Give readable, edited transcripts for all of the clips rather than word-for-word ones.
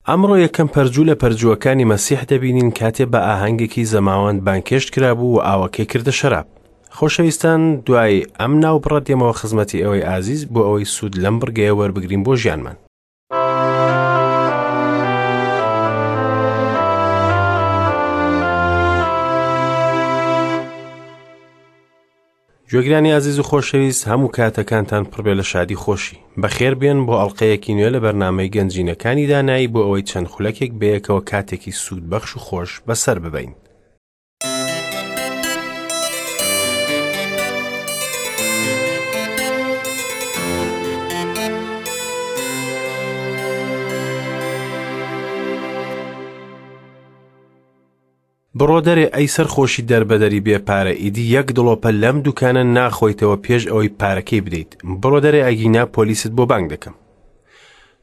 ئەمڕۆ یەکەم پەرجوو لە پەرجووەکانی مەسیح دەبینین کاتێ بە ئاهەنگێکی زەماوەند بانگهێشت کرابوو و ئاوەکەی کردە شەراب. خۆشەویستان دوای ئەم ناوبڕە دێمەوە خزمەتی ئێوەی ئازیز بۆ ئەوەی سوود لەم بڕگەیە وەربگرین بۆ ژیانمان. گوێگرانی ئازیز و خۆشەویست هەموو کاتەکانتان پڕبێ لە شادی خۆشی بەخێر بێن بۆ ئەڵلقەیەکی نوێ لە بەرنامەی گەنجینەکانی دانایی بۆ ئەوەی چەند خولەکێک بەیەکەوە کاتێکی سوود بەخش و خۆش بەسەر ببەین. بڕۆ دەرێ ئەی سەرخۆشی دەربەدەری بێ پارە ئیدی یەک دڵۆپە لەم دوکانە ناخۆیتەوە پێش ئەوەی پارەکەی بدەیت بڕۆ دەرێ ئەگینا پۆلیست بۆ بانگ دەکەم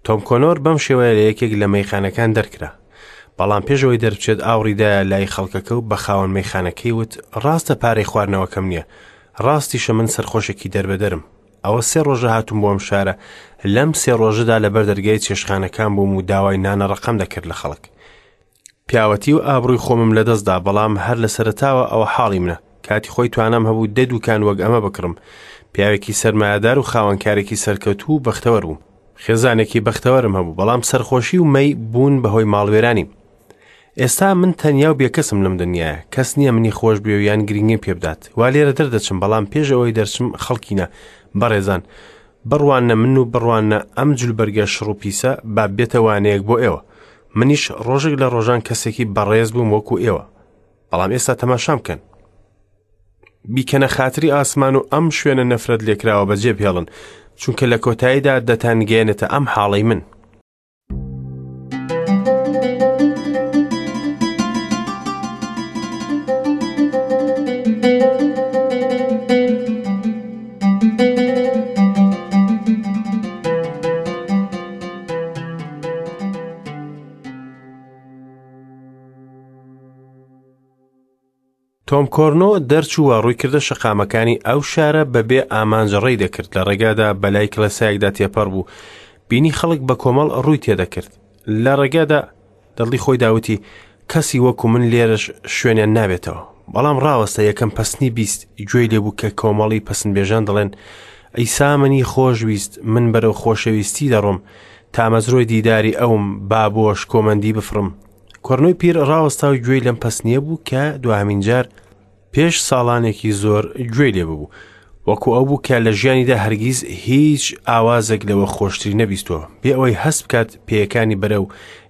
تۆم کۆنۆر بەم شێوەیە لە یەکێک لە مەیخانەکان دەرکرا بەڵام پێش ئەوەی دەربچێت ئاوڕیدایە لای خەڵکەکە و بە خاوەن مەیخانەکەی وت ڕاستە پارەی خواردنەوەکەم نییە ڕاستیشە من سەرخۆشێکی دەربەدەرم ئەوە سێ ڕۆژە هاتووم بۆ ئەم شارە لەم سێ ڕۆژەدا لەبەر دەرگای چێشخانەکان بووم و داوای نانە ڕەقەم دەکرد لە خەڵک پیاوەتی و ئابڕووی خۆمم لەدەست دا، بەڵام هەر لە سەرەتاوە ئەوە حاڵی منە. کاتی خۆی توانام هەبوو دە دووکان وەک ئەمە بکڕم. پیاوێکی سەرمایەدار و خاوەنکارێکی سەرکەوتوو و بەختەوەر بووم. خێزانێکی بەختەوەرم هەبوو، بەڵام سەرخۆشی و مەی بوون بە هۆی ماڵوێرانیم. ئێستا من تەنیا و بێکەسم لەم دنیایە. کەس نییە منی خۆش بوێ و یان گرنگیم پێ بدات. وا لێرە دەردەچم، بەڵام پێش ئەوەی دەرچم خەڵکینە، بەڕێزان، بڕواننە من و بڕواننە ئەم جلوبەرگە شڕ و پیسە، با ببێتە وانەیەک بۆ ئێوە. منیش ڕۆژێک لە ڕۆژان کەسێکی بەڕێز بووم وەکو ئێوە بەڵام ئێستا تەماشام بکەن بیکەنە خاتری ئاسمان و ئەم شوێنە نەفرەت لێکراوە بەجێ بهێڵن چونکە لە کۆتاییدا دەتانگەیەنێتە ئەم حاڵەی من. تۆم کۆرنۆ دەرچوو و ڕووی کردە شەقامەکانی ئەو شارە بەبێ ئامانج ڕێی دەکرد لە ڕێگادا بەلای کڵێسایەکدا تێپەڕ بوو بینی خەڵک بە کۆمەڵ ڕووی تێدەکرد لە ڕێگادا دڵی خۆی داوتی کەسی وەکو من لێرەش شوێنیان نابێتەوە بەڵام ڕاوەستە یەکەم پەسنی 20 گوێی لێبوو کە کۆمەڵی پەسنبێژان دەڵێن ئەیسا منی خۆشویست من بەرەو خۆشەویستی دەڕۆم تامەزرۆی دیداری ئەوم با بۆ شکۆمەندی بفڕم کۆرنۆی پیر ڕاوەستا و گوێی لەم پەسنیە بوو کە دواهەمین جار پێش ساڵانێکی زۆر گوێی لێ ببوو وەکو ئەو بوو کە لە ژیانیدا هەرگیز هیچ ئاوازێک لەوە خۆشتری نەبیستووە بێ ئەوەی هەست بکات پێیەکانی بەرەو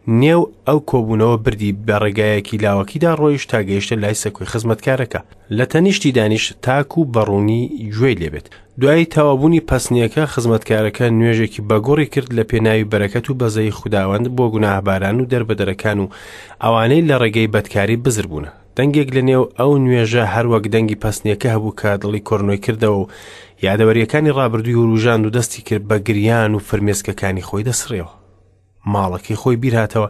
نێو ئەو کۆبوونەوە بردی بە ڕێگایەکی لاوەکیدا ڕۆیشت تا گەیشتە لای سەکۆی خزمەتکارەکە لە تەنیشتی دانیشت تاکو بەڕوونی گوێی لێبێت دوای تەواوبوونی پەسنیەکە خزمەتکارەکە نوێژێکی بەگوڕی کرد لە پێناوی بەرەکەت و بەزەی خوداوەند بۆ گوناهباران و دەربەدەرەکان و ئەوانەی لە ڕێگەی بەدکاری بزر بوونە دەنگێک لە نێو ئەو نوێژە هەروەک دەنگی پەسنیەکە هەبوو کە دڵی کۆرنۆی کردەوە و یادەوەریەکانی ڕابردووی وروژاند و دەستی کرد بە گریان و فرمێسکەکانی خۆی دەسڕیەوە ماڵەکەی خۆی بیرهاتەوە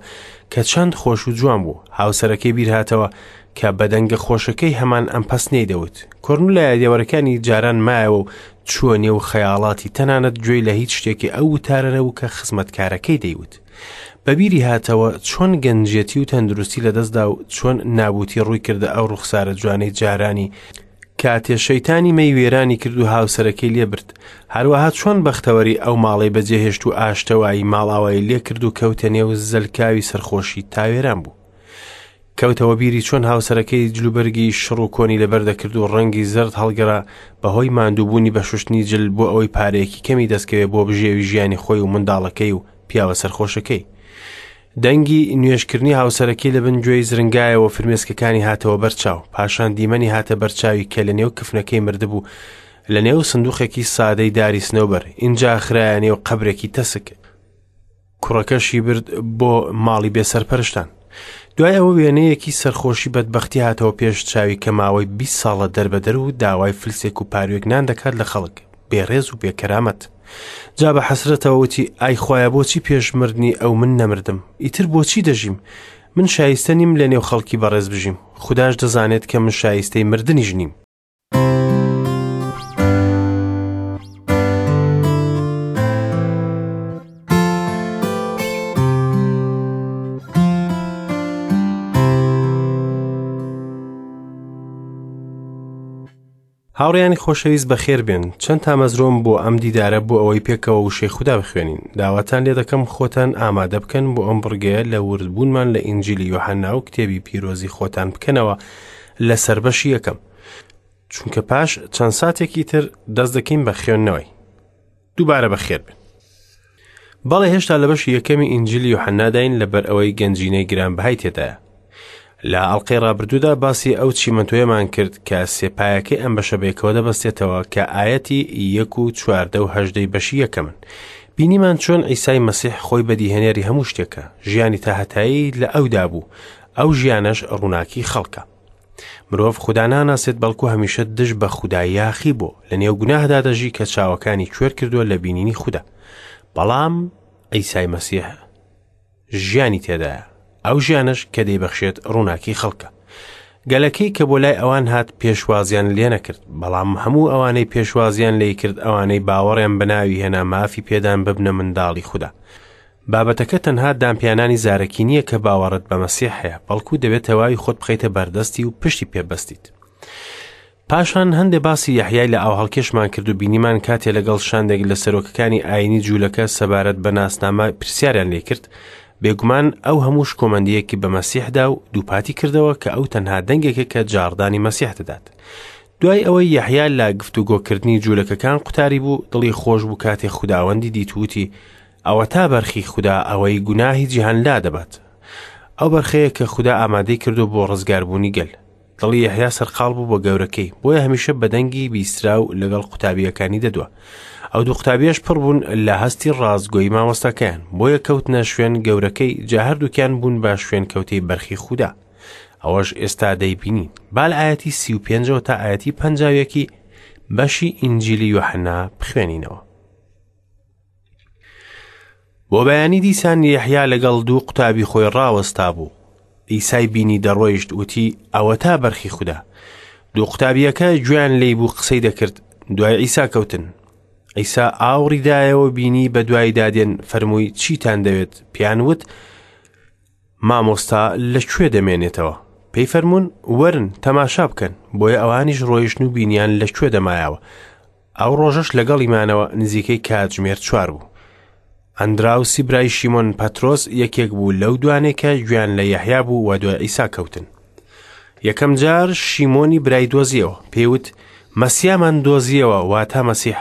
کە چەند خۆش و جوان بوو هاوسەرەکەی بیرهاتەوە کە بە دەنگە خۆشەکەی هەمان ئەم پەسنەی دەوت کۆرن لە یادەوەرەکانی جاران مایەوە و چووە نێو خەیاڵاتی تەنانەت گوێی لە هیچ شتێکی ئەو وتارە نەبوو کە خزمەتکارەکەی دەیوت بەبیری هاتەوە چۆن گەنجێتی و تەندروستی لەدەستدا و چۆن نابوتی ڕووی کردە ئەو ڕوخسارە جوانەی جارانی کاتێ شەیتانی مەی وێرانی کرد و هاوسەرەکەی لێ برد، هەروەها چۆن بەختەوەری ئەو ماڵەی بەجێهێشت و ئاشتەوایی ماڵئاوایی لێ کرد و کەوتە نێو زەلکاوی سەرخۆشی تا وێران بوو. کەوتەوە بیری چۆن هاوسەرەکەی جلوبەرگی شڕ و کۆنی لەبەر دەکرد و ڕەنگی زەرد هەڵگەڕا بەهۆی ماندووبوونی بە شوشتنی جل بۆ ئەوەی پارەیەکی کەمی دەستکەوێ بۆ بژێوی ژیانی خۆی و منداڵەکەی و پیاوە سەرخۆشەکەی. دەنگی نوێژکردنی هاوسەرەکەی لە بن گوێی زرنگایەوە فرمێسکەکانی هاتەوە بەرچاو پاشان دیمەنی هاتە بەرچاوی کە لە نێو کفنەکەی مردبوو لە نێو سندوقێکی سادەی داری سنەوبەر ئینجا خرایە نێو قەبرێکی تەسک کوڕەکەشی برد بۆ ماڵی بێسەرپەرشتان دوای ئەوە وێنەیەکی سەرخۆشی بەدبەختی هاتەوە پێش چاوی کە ماوەی 20 ساڵە دەربەدەر و داوای فلسێک و پاروێک نان دەکات لە خەڵک بێڕێز و بێکەرامەت جا بە حەسرەتەوە وتی ئای خوایە بۆچی پێش مردنی ئەو من نەمردم ئیتر بۆچی دەژیم من شایستە نیم لە نێو خەڵکی بەڕێز بژیم خوداش دەزانێت کە من شایستەی مردنیش نیم. هاوڕێیانی خۆشەویست بەخێر بێن. چەند تامەزرۆم بۆ ئەم دیدارە بۆ ئەوەی پێکەوە وشەی خودا بخوێنین. داواتان لێ دەکەم خۆتان ئامادە بکەن بۆ ئەم بڕگەیە لە وردبوونمان لە ئینجیلی یۆحەنا و کتێبی پیرۆزی خۆتان بکەنەوە لە سەربەشی یەکەم. چونکە پاش چەند ساتێکی تر دەست دەکەین بە خوێندنەوەی. دووبارە بەخێر بن. بەڵێ هێشتا لە بەشی یەکەمی ئینجیلی یۆحەناداین لەبەر ئەوەی گەنجینەی گرانبەهای تێدایە. لە ئەڵقەی ڕابردوودا باسی ئەو چیمەنتۆیەمان کرد کە سێپایەکەی ئەم بەشە بەیەکەوە دەبەستێتەوە کە ئایەتی یەک و چواردە و هەژدەی بەشی یەکەمن. بینیمان چۆن عیسای مەسیح خۆی بەدیهێنەری هەموو شتێکە، ژیانی تاهەتایی لە ئەودا بوو، ئەو ژیانەش ڕووناکی خەڵکە. مرۆڤ خودا ناناسێت بەڵکو هەمیشە دژ بە خودا یاخی بۆ لە نێو گوناهدا دەژی کە چاوەکانی کوێر کردووە لە بینینی خودا بەڵام ئەیسای مەسیح ژیانی تێدایە ئەو ژیانەش کە دەیبەخشێت ڕووناکی خەڵکە گەلەکەی کە بۆ لای ئەوان هات پێشوازیان لێ نەکرد بەڵام هەموو ئەوانەی پێشوازیان لێ کرد ئەوانەی باوەڕیان بەناوی هێنا مافی پێدان ببنە منداڵی خودا بابەتەکە تەنها دانپیانانی زارەکی نییە کە باوەڕت بە مەسیح هەیە، بەڵکو دەبێت تەواوی خۆت بخەیتە بەردەستی و پشتی پێ بەستیت. پاشان هەندێ باسی یەحیای لە ئاوهەڵکێشمان کرد و بینیمان کاتێ لەگەڵ شاندێک لە سەرۆکەکانی ئاینی جوولەکە سەبارەت بە ناسنامە پرسیاریان لێ کرد، بێگومان ئەو هەموو شکۆمەندییەکی بە مەسیح دا و دووپاتی کردەوە کە ئەو تەنها دەنگێکە کە جاڕدانی مەسیح دەدات. دوای ئەوەی یەحیا لە گفتوگۆکردنی جوولەکەکان قوتاری بوو، دڵی خۆش بوو کاتێ خوداوەندی دیت و وتی، ئەوەتا بەرخی خودا ئەوەی گوناهی جیهان لادەبات. ئەو بەرخەیە کە خودا ئامادەی کردووە بۆ ڕزگاربوونی گەل. دڵی یەحیا سەرقاڵ بوو بە گەورەکەی، بۆیە هەمیشە بە دەنگی بیستراو لەگەڵ قوتابییەکانی دەدوا. ئەو دوو قوتابیەش پڕ بوون لە هەستی ڕاستگۆیی مامۆستاکەیان، بۆیە کەوتنە شوێن گەورەکەی، جا هەردووکیان بوون بە شوێنکەوتەی بەرخی خودا. ئەوەش ئێستا دەیبینین. با لە ئایەتی 35ەوە تا ئایەتی 51 بەشی ئینجیلی یۆحەنا بخوێنینەوە. بۆ بەیانی دیسان یەحیا لەگەڵ دوو قوتابی خۆی ڕاوەستا بوو. عیسای بینی دەڕۆیشت وتی ئەوەتا بەرخی خودا. دوو قوتابییەکە گوێیان لێی بوو قسەی دەکرد، دوای عیسا کەوتن. عیسا ئاوڕی دایەوە بینی بە دوایدا دێن فەرمووی چیتان دەوێت؟ پێیان وت مامۆستا لە کوێ دەمێنێتەوە؟ پێی فەرموون وەرن تەماشا بکەن. بۆیە ئەوانیش ڕۆیشتن و بینیان لە کوێ دەمایەوە. ئەو ڕۆژەش لەگەڵی مانەوە نزیکەی کاتژمێر چوار بوو. ئەندراوسی برای شیمۆن پەترۆس یەکێک بوو لەو دوانەی کە گوێیان لە یەحیا بوو و دوای عیسا کەوتن. یەکەم جار شیمۆنی برای دۆزیەوە، پێی وت، مەسیامان دۆزیەوە، واتە مەسیح.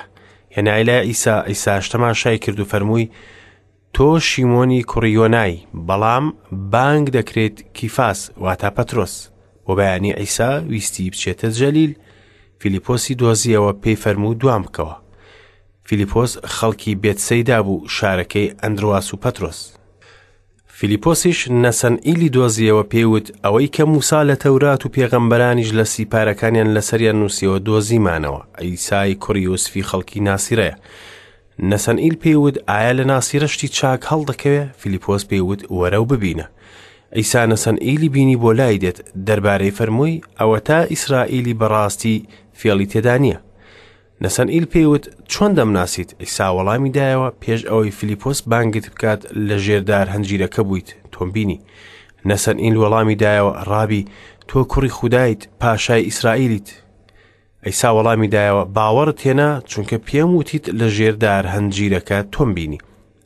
هێنای لای عیسا، عیساش تەماشای کرد و فەرمووی، تۆ شیمۆنی کوڕی یۆنای، بەڵام بانگ دەکرێیت کیفاس، واتە پەترۆس. بۆ بەیانی عیسا ویستی بچێتە جەلیل، فیلیپۆسی دۆزیەوە پێی فەرموو دوام بکەوە. فیلیپۆس خەڵکی بێتسەیدا بوو، شارەکەی ئەندرواس و پەترۆس. فیلیپۆسیش نەسەنئیلی دۆزیەوە پێی وت، ئەوەی کە موسا لە تەورات و پێغەمبەرانیش لە سیپارەکانیان لەسەریان نووسیەوە دۆزیمانەوە، عیسای کوڕی یوسفی خەڵکی ناسیرەیە. نەسەنئیل پێی وت، ئایا لە ناسیرە شتی چاک هەڵدەکەوێ؟ فیلیپۆس پێی وت، وەرە و ببینە. عیسا نەسەنئیلی بینی بۆ لای دێت، دەربارەی فەرمووی، ئەوەتا ئیسرائیلی بەڕاستی فێڵی تێدا نییە. نەسەنئیل پێی وت، چۆن دەمناسیت؟ عیسا وەڵامی دایەوە، پێش ئەوەی فیلیپۆس بانگت بکات لە ژێر دار هەنجیرەکە بوویت، تۆم بینی. نەسەنئیل وەڵامی دایەوە، ڕابی، تۆ کوڕی خودایت، پاشای ئیسرائیلیت. عیسا وەڵامی دایەوە، باوەڕت هێنا، چونکە پێم وتیت لە ژێر دار هەنجیرەکە تۆم بینی.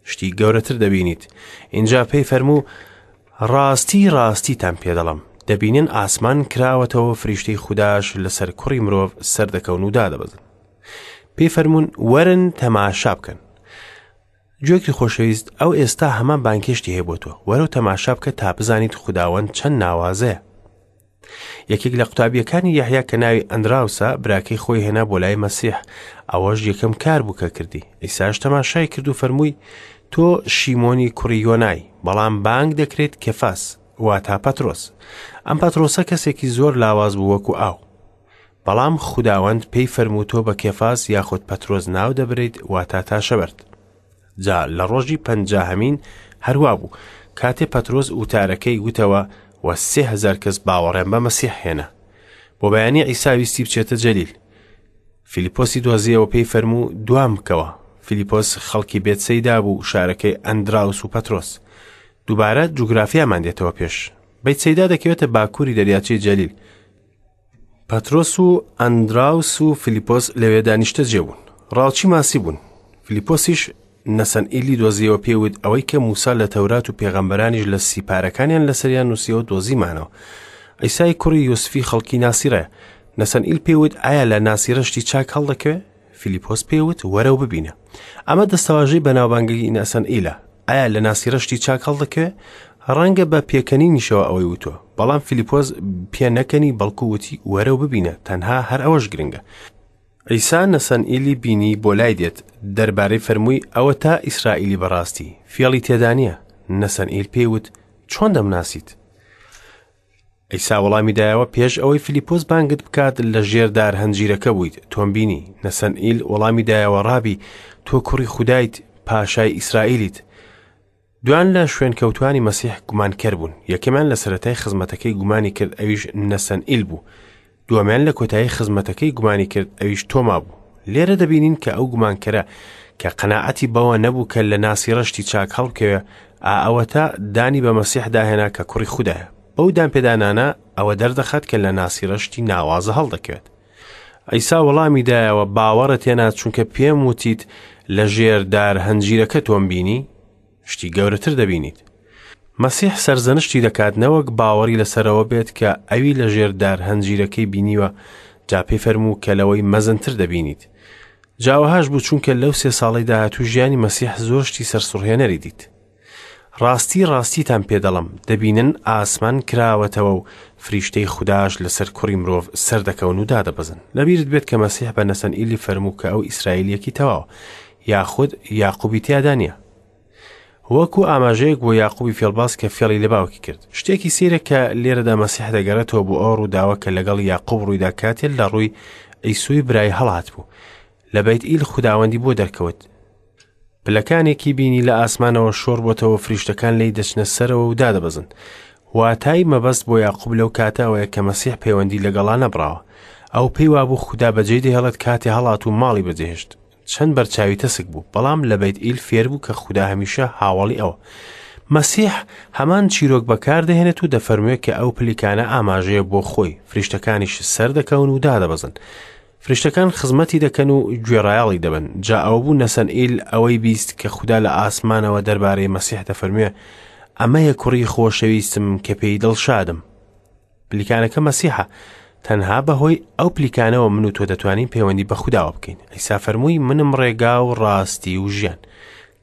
شتی گەورەتر دەبینیت. ئینجا پێی فەرموو، ڕاستی ڕاستیتان پێ دەڵێم، دەبینن ئاسمان کراوەتەوە فریشتەی خوداش لەسەر کوڕی مرۆڤ سەردەکەون و دادەبەزن. پێی فەرموون، وەرن تەماشا بکەن. گوێگری خۆشەویست، ئەو ئێستا هەمان بانگهێشتی هەیە بۆ تۆ. وەرە و تەماشا بکە تا بزانیت خوداوەند چەند ناوازەیە. یەکێک لە قوتابیەکانی یەحیا کە ناوی ئەندراوسە براکەی خۆی هێنا بۆ لای مەسیح ئەوەش یەکەم کار بوو کە کردی ئیساش تەماشای کرد و فەرمووی تۆ شیمۆنی کوڕی یۆنای بەڵام بانگ دەکرێت کەفاس واتا پەترۆس ئەم پەترۆسە کەسێکی زۆر لاواز بوو وەکو ئاو بەڵام خوداوەند پێی فەرموو تۆ بە کێفاس یاخود پەترۆس ناو دەبریت واتا تاشەبەرد جا لە ڕۆژی پەنجاهەمین هەروا بوو، کاتێ پەترۆس وتارەکەی وتەوە و 3000 کەس باوەڕیان بە مەسیح هێنا. بۆ بەیانی عیسا ویستی بچێتە جەلیل. فیلیپۆسی دۆزیەوە پێی فەرموو دوام بکەوە. فیلیپۆس خەڵکی بێتسەیدا بوو، شارەکەی ئەندراوس و پەترۆس. دووبارە جوگرافیامان دێتەوە پێش. بەیتسەیدا دەکەوێتە باکووری دەریاچەی جەلیل. پەترۆس و ئەندراوس و فیلیپۆس لەوێدا نیشتەجێ بوون. ڕاوچی ماسی بوون. فیلیپۆسیش نەسەنئیلی دۆزیەوە پێی وت، ئەوەی کە موسا لە تەورات و پێغەمبەرانیش لە سیپارەکانیان لەسەریان نووسیەوە دۆزیمانەوە. عیسای کوڕی یوسفی خەڵکی ناسیرەیە. نەسەنئیل پێی وت، ئایا لە ناسیرە شتی چاک هەڵدەکەوێ؟ فیلیپۆس پێی وت، وەرە و ببینە. ئەمە دەستەواژەی بەناوبانگی نەسەنئیلە. ئایا لە ناسیرە شتی چاک هەڵدەکەوێ؟ ڕەنگە بە پێکەنینیشەوە ئەوەی وتووە، بەڵام فیلیپۆس پێ نەکەنی بەڵکو وتی وەرە و ببینە، تەنها هەر ئەوەش گرنگە. عیسا نەسەنئیلی بینی بۆ لای دێت، دەربارەی فەرمووی ئەوەتا ئیسرائیلی بەڕاستی، فێڵی تێدا نییە. نەسەنئیل پێی وت چۆن دەمناسیت؟ عیسا وەڵامی دایەوە پێش ئەوەی فیلیپۆس بانگت بکات لە ژێر دار هەنجیرەکە بوویت تۆم بینی. نەسەنئیل وەڵامی دایەوە ڕابی تۆ کوڕی خودایت، پاشای ئیسرائیلیت. دوان لە شوێنکەوتوانی مەسیح گومانکەر بوون. یەکەمیان لە سەرەتای خزمەتەکەی گومانی کرد ئەویش نەسەنئیل بوو. دووەمیان لە کۆتایی خزمەتەکەی گومانی کرد ئەویش تۆما بوو. لێرە دەبینین کە ئەو گومانکەرە کە قەناعەتی بەوە نەبوو کە لە ناسیڕە شتی چاک هەڵبکەوێ، ئا ئەوەتا دانی بە مەسیحدا هێنا کە کوڕی خودایە. بەو دانپێدانانە ئەوە دەردەخات کە لە ناسیڕە شتی ناوازە هەڵدەکەوێت. عیسا وەڵامی دایەوە، باوەڕت هێنا چونکە پێم وتیت لە ژێر دار هەنجیرەکە تۆم بینی؟ شتی گەورەتر دەبینیت. مەسیح سەرزەنشتی دەکات نەوەک باوەڕی لەسەرەوە بێت کە ئەوی لە ژێر دار هەنجیرەکەی بینیوە، جا پێی فەرموو کە لەوەی مەزنتر دەبینیت. جا وەهاش بوو چونکە لەو سێ ساڵەی داهاتوو ژیانی مەسیح زۆر شتی سەرسوڕهێنەری دیت. ڕاستی ڕاستیتان پێ دەڵێم، دەبینن ئاسمان کراوەتەوە و فریشتەی خوداش لەسەر کوڕی مرۆڤ سەردەکەون و دادەبەزن. لەبیرت بێت کە مەسیح بە نەسەنئیلی فەرموو کە ئەو ئیسرائیلییەکی تەواوە، یاخود یاقوبی تیادا نییە. وەکو ئاماژەیەک بۆ یاقوبی فێڵباز کە فێڵی لە باوکی کرد. شتێکی سەیرە کە لێرەدا مەسیح دەگەڕێتەوە بۆ ئەو ڕووداوە کە لەگەڵ یاقوب ڕوویدا کاتێ لە ڕووی عیسوی برای هەڵهاتبوو. لە بەیتئیل خوداوەندی بۆ دەرکەوت. پلەکانێکی بینی لە ئاسمانەوە شۆڕ بۆتەوە فریشتەکان لێی دەچنە سەرەوە و دادەبەزن. واتای مەبەست بۆ یاقوب لەو کاتە ئەوەیە کە مەسیح پەیوەندی لەگەڵا نەبڕاوە. ئەو پێی وابوو خودا بەجێی دەهێڵێت کاتێ هەڵات و ماڵی بەجێهێشت. چەند بەرچاوی تەسک بوو، بەڵام لە بەیت ئیل فێر بوو کە خودا هەمیشە هاوەڵی ئەوە. مەسیح هەمان چیرۆک بەکار دەهێنێت و دەفەرموێ کە ئەو پلیکانە ئاماژەیە بۆ خۆی، فریشتەکانیش سەردەکەون و دادەبەزن. فریشتەکان خزمەتی دەکەن و گوێڕایەڵی دەبن. جا ئەوە بوو نەسەنئیل ئەوەی بیست کە خودا لە ئاسمانەوە دەربارەی مەسیح دەفەرموێ، ئەمەیە کوڕی خۆشەویستم کە پێی دڵشادم. پلیکانەکە مەسیحە. تەنها بەهۆی ئەو پلیکانەوە من و تۆ دەتوانین پەیوەندی بە خوداوە بکەین. عیسا فەرمووی منم ڕێگا و ڕاستی و ژیان.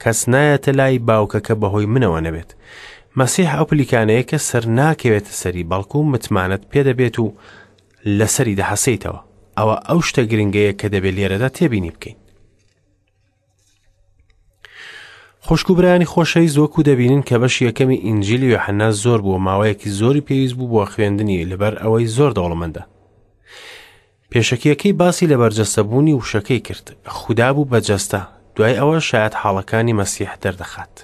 کەس نایەتە لای باوکەکە بەهۆی منەوە نەبێت. مەسیح ئەو پلیکانەیە کە سەر ناکەوێتە سەری بەڵکو متمانەت پێدەبێت و لەسەری دەحەسێیتەوە. ئەوە ئەو شتە گرنگەیە کە دەبێت لێرەدا تێبینی بکەین. خوشک و برایانی خۆشەویست وەکو دەبینن کە بەشی یەکەمی ئینجیلی یۆحەنا زۆر بووە ماوەیەکی زۆری پێویست بوو بۆ خوێندنی لەبەر ئەوەی زۆر دەوڵەمەندە. پێشەکیەکەی باسی لە بەرجەستەبوونی وشەکەی کرد خودا بوو بە جەستە دوای ئەوە شایەت حاڵەکانی مەسیح دەردەخات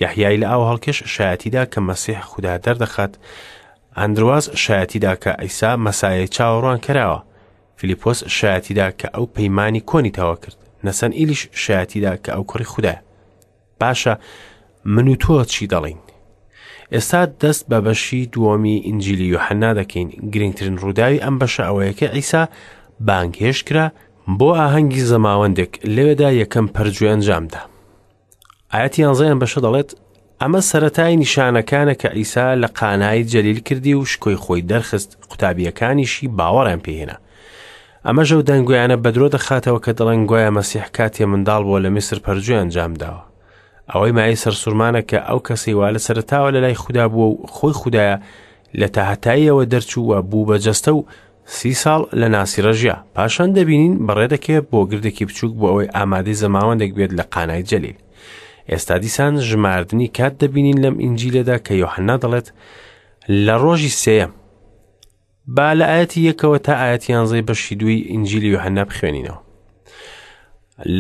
یەحیای لە ئاو هەڵکێش شایەتیدا کە مەسیح خودا دەردەخات ئەندرواس شایەتیدا کە عیسا مەسایەی چاوەڕوان کراوە فیلیپۆس شایەتیدا کە ئەو پەیمانی کۆنی تەوا کرد نەسەن ئیلیش شایەتیدا کە ئەو کوڕی خودایە باشە من و تۆ چی دەڵین ئێستا دەست بە بەشی دووەمی ئینجیلی یۆحەنا دەکەین گرنگترین ڕووداوی ئەم بەشە ئەوەیە کە عیسا بانگهێشت کرا بۆ ئاهەنگی زەماوەندێک لەوێدا یەکەم پەرجوی ئەنجامدا ئاەتی یانزەیان بەشە دەڵێت ئەمە سەتای نیشانەکانە کە عیسا لە قانای جەلیل کردی و شکۆی خۆی دەرخست قوتابیەکانیشی باوەڕیان پێهێنا ئەمەش ئەو دەنگۆیانە بەدرۆ دەخاتەوە کە دەڵێن گوایە مەسیح کاتێ منداڵ بووە لە میسر پەرجوی ئەنجام داوە. ئەوەی مایەی سەرسوڕمانە کە ئەو کەسەی وا لە سەرەتاوە لە لای خودا بووە و خۆی خودایە لە تاهەتاییەوە دەرچوو و بوو بە جەستە و سی ساڵ لە ناسیڕە ژیا. پاشان دەبینین بەڕێ دەکەوێت بۆ گردێکی بچووک بۆ ئەوەی ئامادەی زەماوەندێک بێت لە قانای جەلیل. ئێستا دیسان ژماردنی کات دەبینین لەم ئینجیلەدا کە یۆحەنا دەڵێت لە ڕۆژی سێیەم با لە ئایەتی یەکەوە تا ئایەتی یانزەی بەشی دووی ئینجیلی یۆحەنا بخوێنینەوە.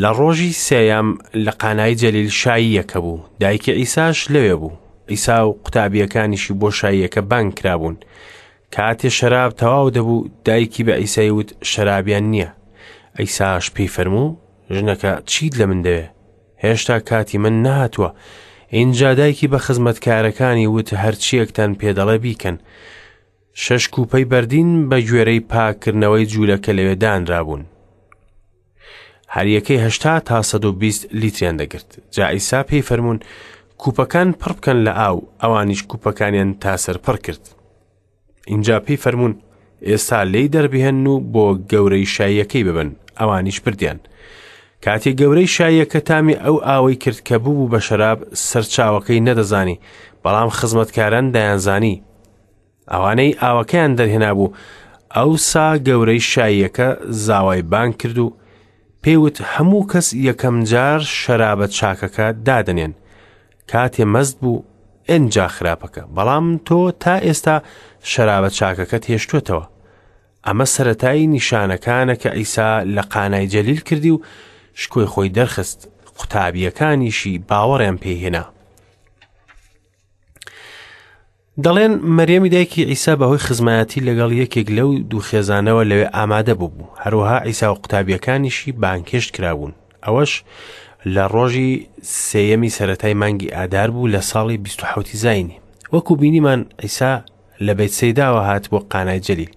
لە ڕۆژی سێیەم لە قانای جەلیل شاییەکە بوو، دایکی عیساش لەوێ بوو. عیسا و قوتابییەکانیشی بۆ شاییەکە بانگ کرابوون. کاتێ شەراب تەواو دەبوو، دایکی بە عیسای وت شەرابیان نییە. عیساش پێی فەرموو، ژنەکە چیت لە من دەوێ؟ هێشتا کاتی من نەهاتووە. ئینجا دایکی بە خزمەتکارەکانی وت هەرچییەکتان پێ دەڵێ بیکەن. شەش کوپەی بەردین بە گوێرەی پاککردنەوەی جوولەکە لەوێ دانرابوون. هەریەکەی 80 تا 120 لیتریان دەگرت. جا عیسا پێی فەرموون کوپەکان پڕ بکەن لە ئاو، ئەوانیش کوپەکانیان تا سەر پڕ کرد. ئینجا پێی فەرموون ئێستا لێی دەربهێنن و بۆ گەورەی شاییەکەی ببن، ئەوانیش بردیان. کاتێ گەورەی شاییەکە تامی ئەو ئاوەی کرد کە ببوو بە شەراب، سەرچاوەکەی نەدەزانی، بەڵام خزمەتکاران دەیانزانی. ئەوانەی ئاوەکەیان دەرهێنابوو، ئەوسا گەورەی شاییەکە زاوای بانگ کرد و پێی وت هەموو کەس یەکەم جار شەرابە چاکەکە دادەنێن، کاتێ مەست بوو ئنجا خراپەکە، بەڵام تۆ تا ئێستا شەرابە چاکەکەت هێشتووەتەوە. ئەمە سەرەتای نیشانەکانە کە عیسا لە قانای جەلیل کردی و شکۆی خۆی دەرخست، قوتابییەکانیشی باوەڕیان پێی هێنا. دەڵێن مەریەمی دایکی عیسا بەهۆی خزمایەتی لەگەڵ یەکێک لەو دوو خێزانەوە لەوێ ئامادە بوو، هەروەها عیسا و قوتابیەکانیشی بانگهێشت کرابوون. ئەوەش لە ڕۆژی سێیەمی سەرەتای مانگی ئادار بوو لە ساڵی 27 زایینی. وەکو بینیمان عیسا لە بەیتسەیداوە هات بۆ قانای جەلیل.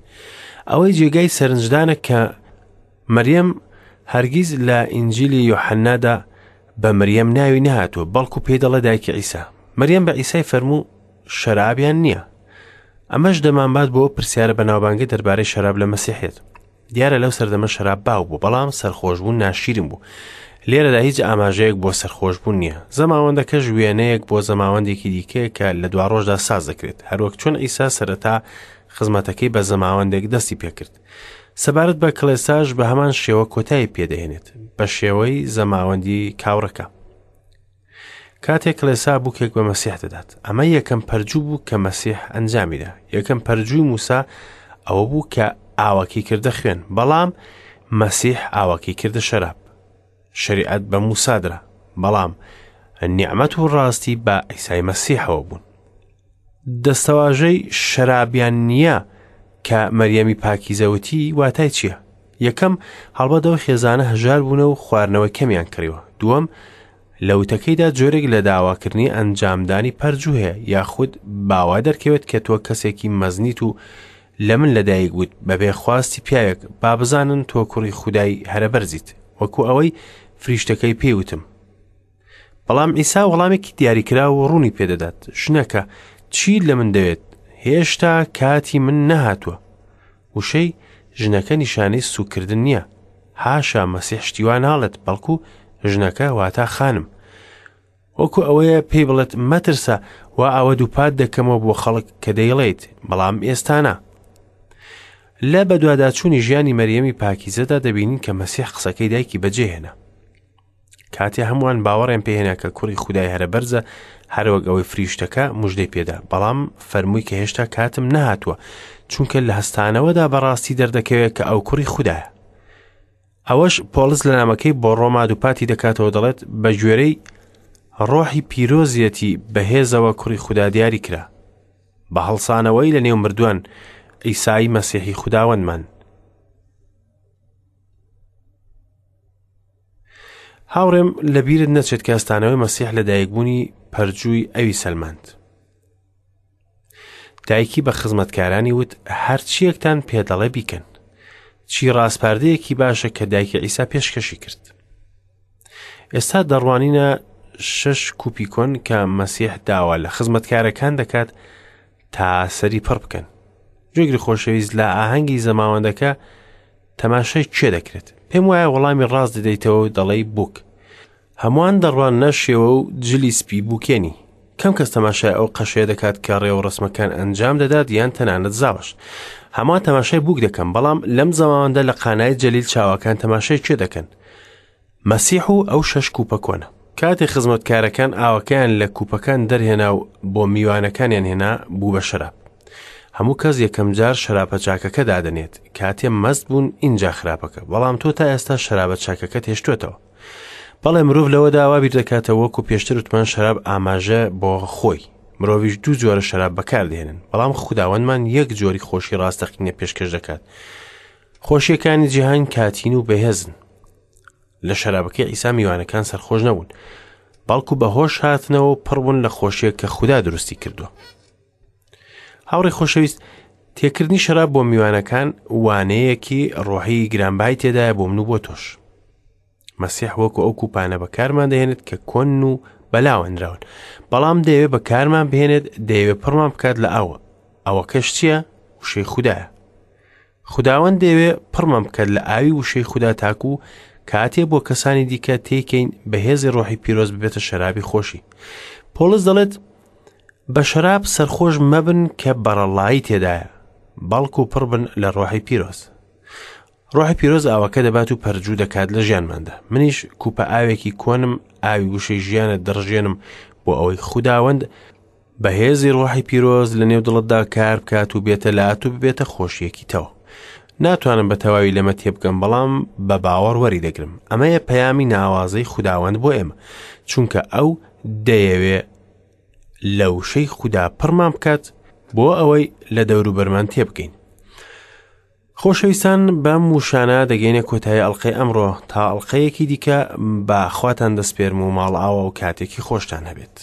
ئەوەی جێگای سەرنجدانە کە مریەم هەرگیز لە ئینجیلی یۆحەنادا بە مریەم ناوی نەهاتووە، بەڵکو پێی دەڵێ دایکی عیسا. مریەم بە عیسای فەرموو شەرابیان نییە. ئەمەش دەمانبات بۆ پرسیارە بەناوبانگە دەربارەی شەراب لە مەسیحیەت. دیارە لەو سەردەمە شەراب باو بوو، بەڵام سەرخۆشبوون ناشیرین بوو. لێرەدا هیچ ئاماژەیەک بۆ سەرخۆشبوون نییە. زەماوەندەکەش وێنەیەک بۆ زەماوەندێکی دیکەیە کە لە دواڕۆژدا ساز دەکرێت، هەروەک چۆن عیسا سەرەتا خزمەتەکەی بە زەماوەندێک دەستی پێکرد. سەبارەت بە کڵێساش بە هەمان شێوە کۆتایی پێدەهێنێت، بە شێوەی زەماوەندی کاوڕەکە. کاتێک کڵێسا بووکێک بە مەسیح دەدات، ئەمە یەکەم پەرجوو بوو کە مەسیح ئەنجامیدا. یەکەم پەرجووی موسا ئەوە بوو کە ئاوەکەی کردە خوێن، بەڵام مەسیح ئاوەکەی کردە شەراب. شەریعەت بە موسا درا، بەڵام نیعمەت و ڕاستی بە عیسای مەسیحەوە بوون. دەستەواژەی شەرابیان نییە کە مەریەمی پاکیزە وتی واتای چییە؟ یەکەم، هەڵبەت ئەو خێزانە هەژار بوونە و خواردنەوەی کەمیان کڕیوە. دووەم، لە وتەکەیدا جۆرێک لە داواکردنی ئەنجامدانی پەرجوو هەیە، یاخود باوا دەرکەوێت کە تۆ کەسێکی مەزنیت و لە من لەدایک بوویت بەبێ خواستی پیاوێک، با بزانن تۆ کوڕی خودای هەرەبەرزیت، وەکو ئەوەی فریشتەکەی پێی وتم. بەڵام عیسا وەڵامێکی دیاریکراو و ڕوونی پێدەدات، ژنەکە چی لە من دەوێت؟ هێشتا کاتی من نەهاتووە. وشەی ژنەکە نیشانەی سوکردن نییە. حاشا مەسیح شتی وا ناڵێت، بەڵکو ژنەکە واتا خانم. وەکو ئەوەیە پێی بڵێت مەترسە، وا ئەوە دووپات دەکەمەوە بۆ خەڵک کە دەیڵێیت، بەڵام ئێستا نا. لە بەدواداچوونی ژیانی مەریەمی پاکیزەدا دەبینین کە مەسیح قسەکەی دایکی بەجێهێنا. کاتێ هەمووان باوەڕیان پێهێنا کە کوڕی خودای هەرە بەرزە، هەروەک ئەوەی فریشتەکە مژدەی پێدا، بەڵام فەرمووی کە هێشتا کاتم نەهاتووە، چونکە لە هەستانەوەدا بەڕاستی دەردەکەوێت کە ئەو کوڕی خودایە. ئەوەش پۆڵس لە نامەکەی بۆ ڕۆما دووپاتی دەکاتەوە، دەڵێت بە گوێرەی ڕۆحی پیرۆزیەتی بەهێزەوە کوڕی خودا دیاری کرا، بە هەڵسانەوەی لە نێو مردووان، عیسای مەسیحی خوداوەندمان. هاوڕێم لەبیرت نەچێت کە هەستانەوەی مەسیح لە دایکبوونی پەرجووی ئەوی سەلماند. دایکی بە خزمەتکارانی وت هەرچیەکتان پێدەڵێ بیکەن. چی ڕاسپاردەیەکی باشە کە دایکی عیسا پێشکەشی کرد. ئێستا دەڕوانینە شەش کوپی کۆن کە مەسیح داوا لە خزمەتکارەکان دەکات تا سەری پڕ بکەن. جێگری خۆشەویست لە ئاهەنگی زەماوەندەکە تەماشای کێ دەکرێت؟ پێم وایە وەڵامی ڕاست دەدەیتەوە و دەڵێی بووک. هەمووان دەڕواننە شێوە و جلی سپی بووکێنی. کەم کەس تەماشای ئەو قەشەیە دەکات کە ڕێوڕەسمەکان ئەنجام دەدات یان تەنانەت زاوەش. هەمووان تەماشای بووک دەکەن، بەڵام لەم زەماوەندە لە قانای جەلیل چاوەکان تەماشای کێ دەکەن؟ مەسیح و ئەو شەش کوپە کۆنە. کاتێ خزمەتکارەکان ئاوەکەیان لە کوپەکان دەرهێنا و بۆ میوانەکانیان هێنا، بوو بە شەراب. هەموو کەس یەکەم جار شەرابە چاکەکە دادەنێت، کاتێ مەست بوون ئینجا خراپەکە، بەڵام تۆ تا ئێستا شەرابە چاکەکەت هێشتووەتەوە. بەڵێ مرۆڤ لەوەدا وا بیر دەکاتەوە وەکو پێشتر وتمان شەراب ئاماژە بۆ خۆی. مرۆڤیش دوو جۆرە شەراب بەکاردێنن، بەڵام خوداوەندمان یەک جۆری خۆشی ڕاستەقینە پێشکەش دەکات. خۆشیەکانی جیهان کاتین و بەهێزن. لە شەرابەکەی عیسا میوانەکان سەرخۆش نەبوون، بەڵکو بە هۆش هاتنەوە و پڕ بوون لە خۆشیەک کە خودا دروستی کردووە. هاوڕێ خۆشەویست، تێکردنی شەراب بۆ میوانەکان وانەیەکی ڕۆحی گرانبەهای تێدایە بۆ من و بۆ تۆش. مەسیح وەکو ئەو کوپانە بەکارمان دەهێنێت کە کۆن و بەلاوەنراون، بەڵام دەیەوێت بەکارمان بهێنێت، دەیەوێت پڕمان بکات لە ئاوە. ئەوەکەش چییە؟ وشەی خودایە. خوداوەند دەیەوێ پڕمان بکات لە ئاوی وشەی خودا تاکو کاتێ بۆ کەسانی دیکە تێکەین بە هێزی ڕۆحی پیرۆز ببێتە شەرابی خۆشی. پۆڵس دەڵێت بە شەراب سەرخۆش مەبن کە بەڕەڵایی تێدایە، بەڵکو پڕ بن لە ڕۆحی پیرۆز. ڕۆحی پیرۆز ئاوەکە دەبات و پەرجوو دەکات لە ژیانماندا. منیش کوپە ئاوێکی کۆنم، ئاوی وشەی ژیانت دەڕژێنم بۆ ئەوەی خوداوەند بە هێزی ڕۆحی پیرۆز لە نێو دڵتدا کار بکات و بێتە لات و ببێتە خۆشیەکی تەوە. ناتوانم بە تەواوی لەمە تێبگەم بەڵام بە باوەڕ وەری دەگرم. ئەمەیە پەیامی ناوازەی خوداوەند بۆ ئێمە، چونکە ئەو دەیەوێ لە وشەی خودا پڕمان بکات بۆ ئەوەی لە دەوروبەرمان تێبگەین. خۆشەویستان بەم وشانە دەگەینە کۆتایی ئەڵلقەی ئەمڕۆ تا ئەڵلقەیەکی دیکە بە خواتان دەسپێرم و ماڵئاوا و کاتێکی خۆشتان هەبێت.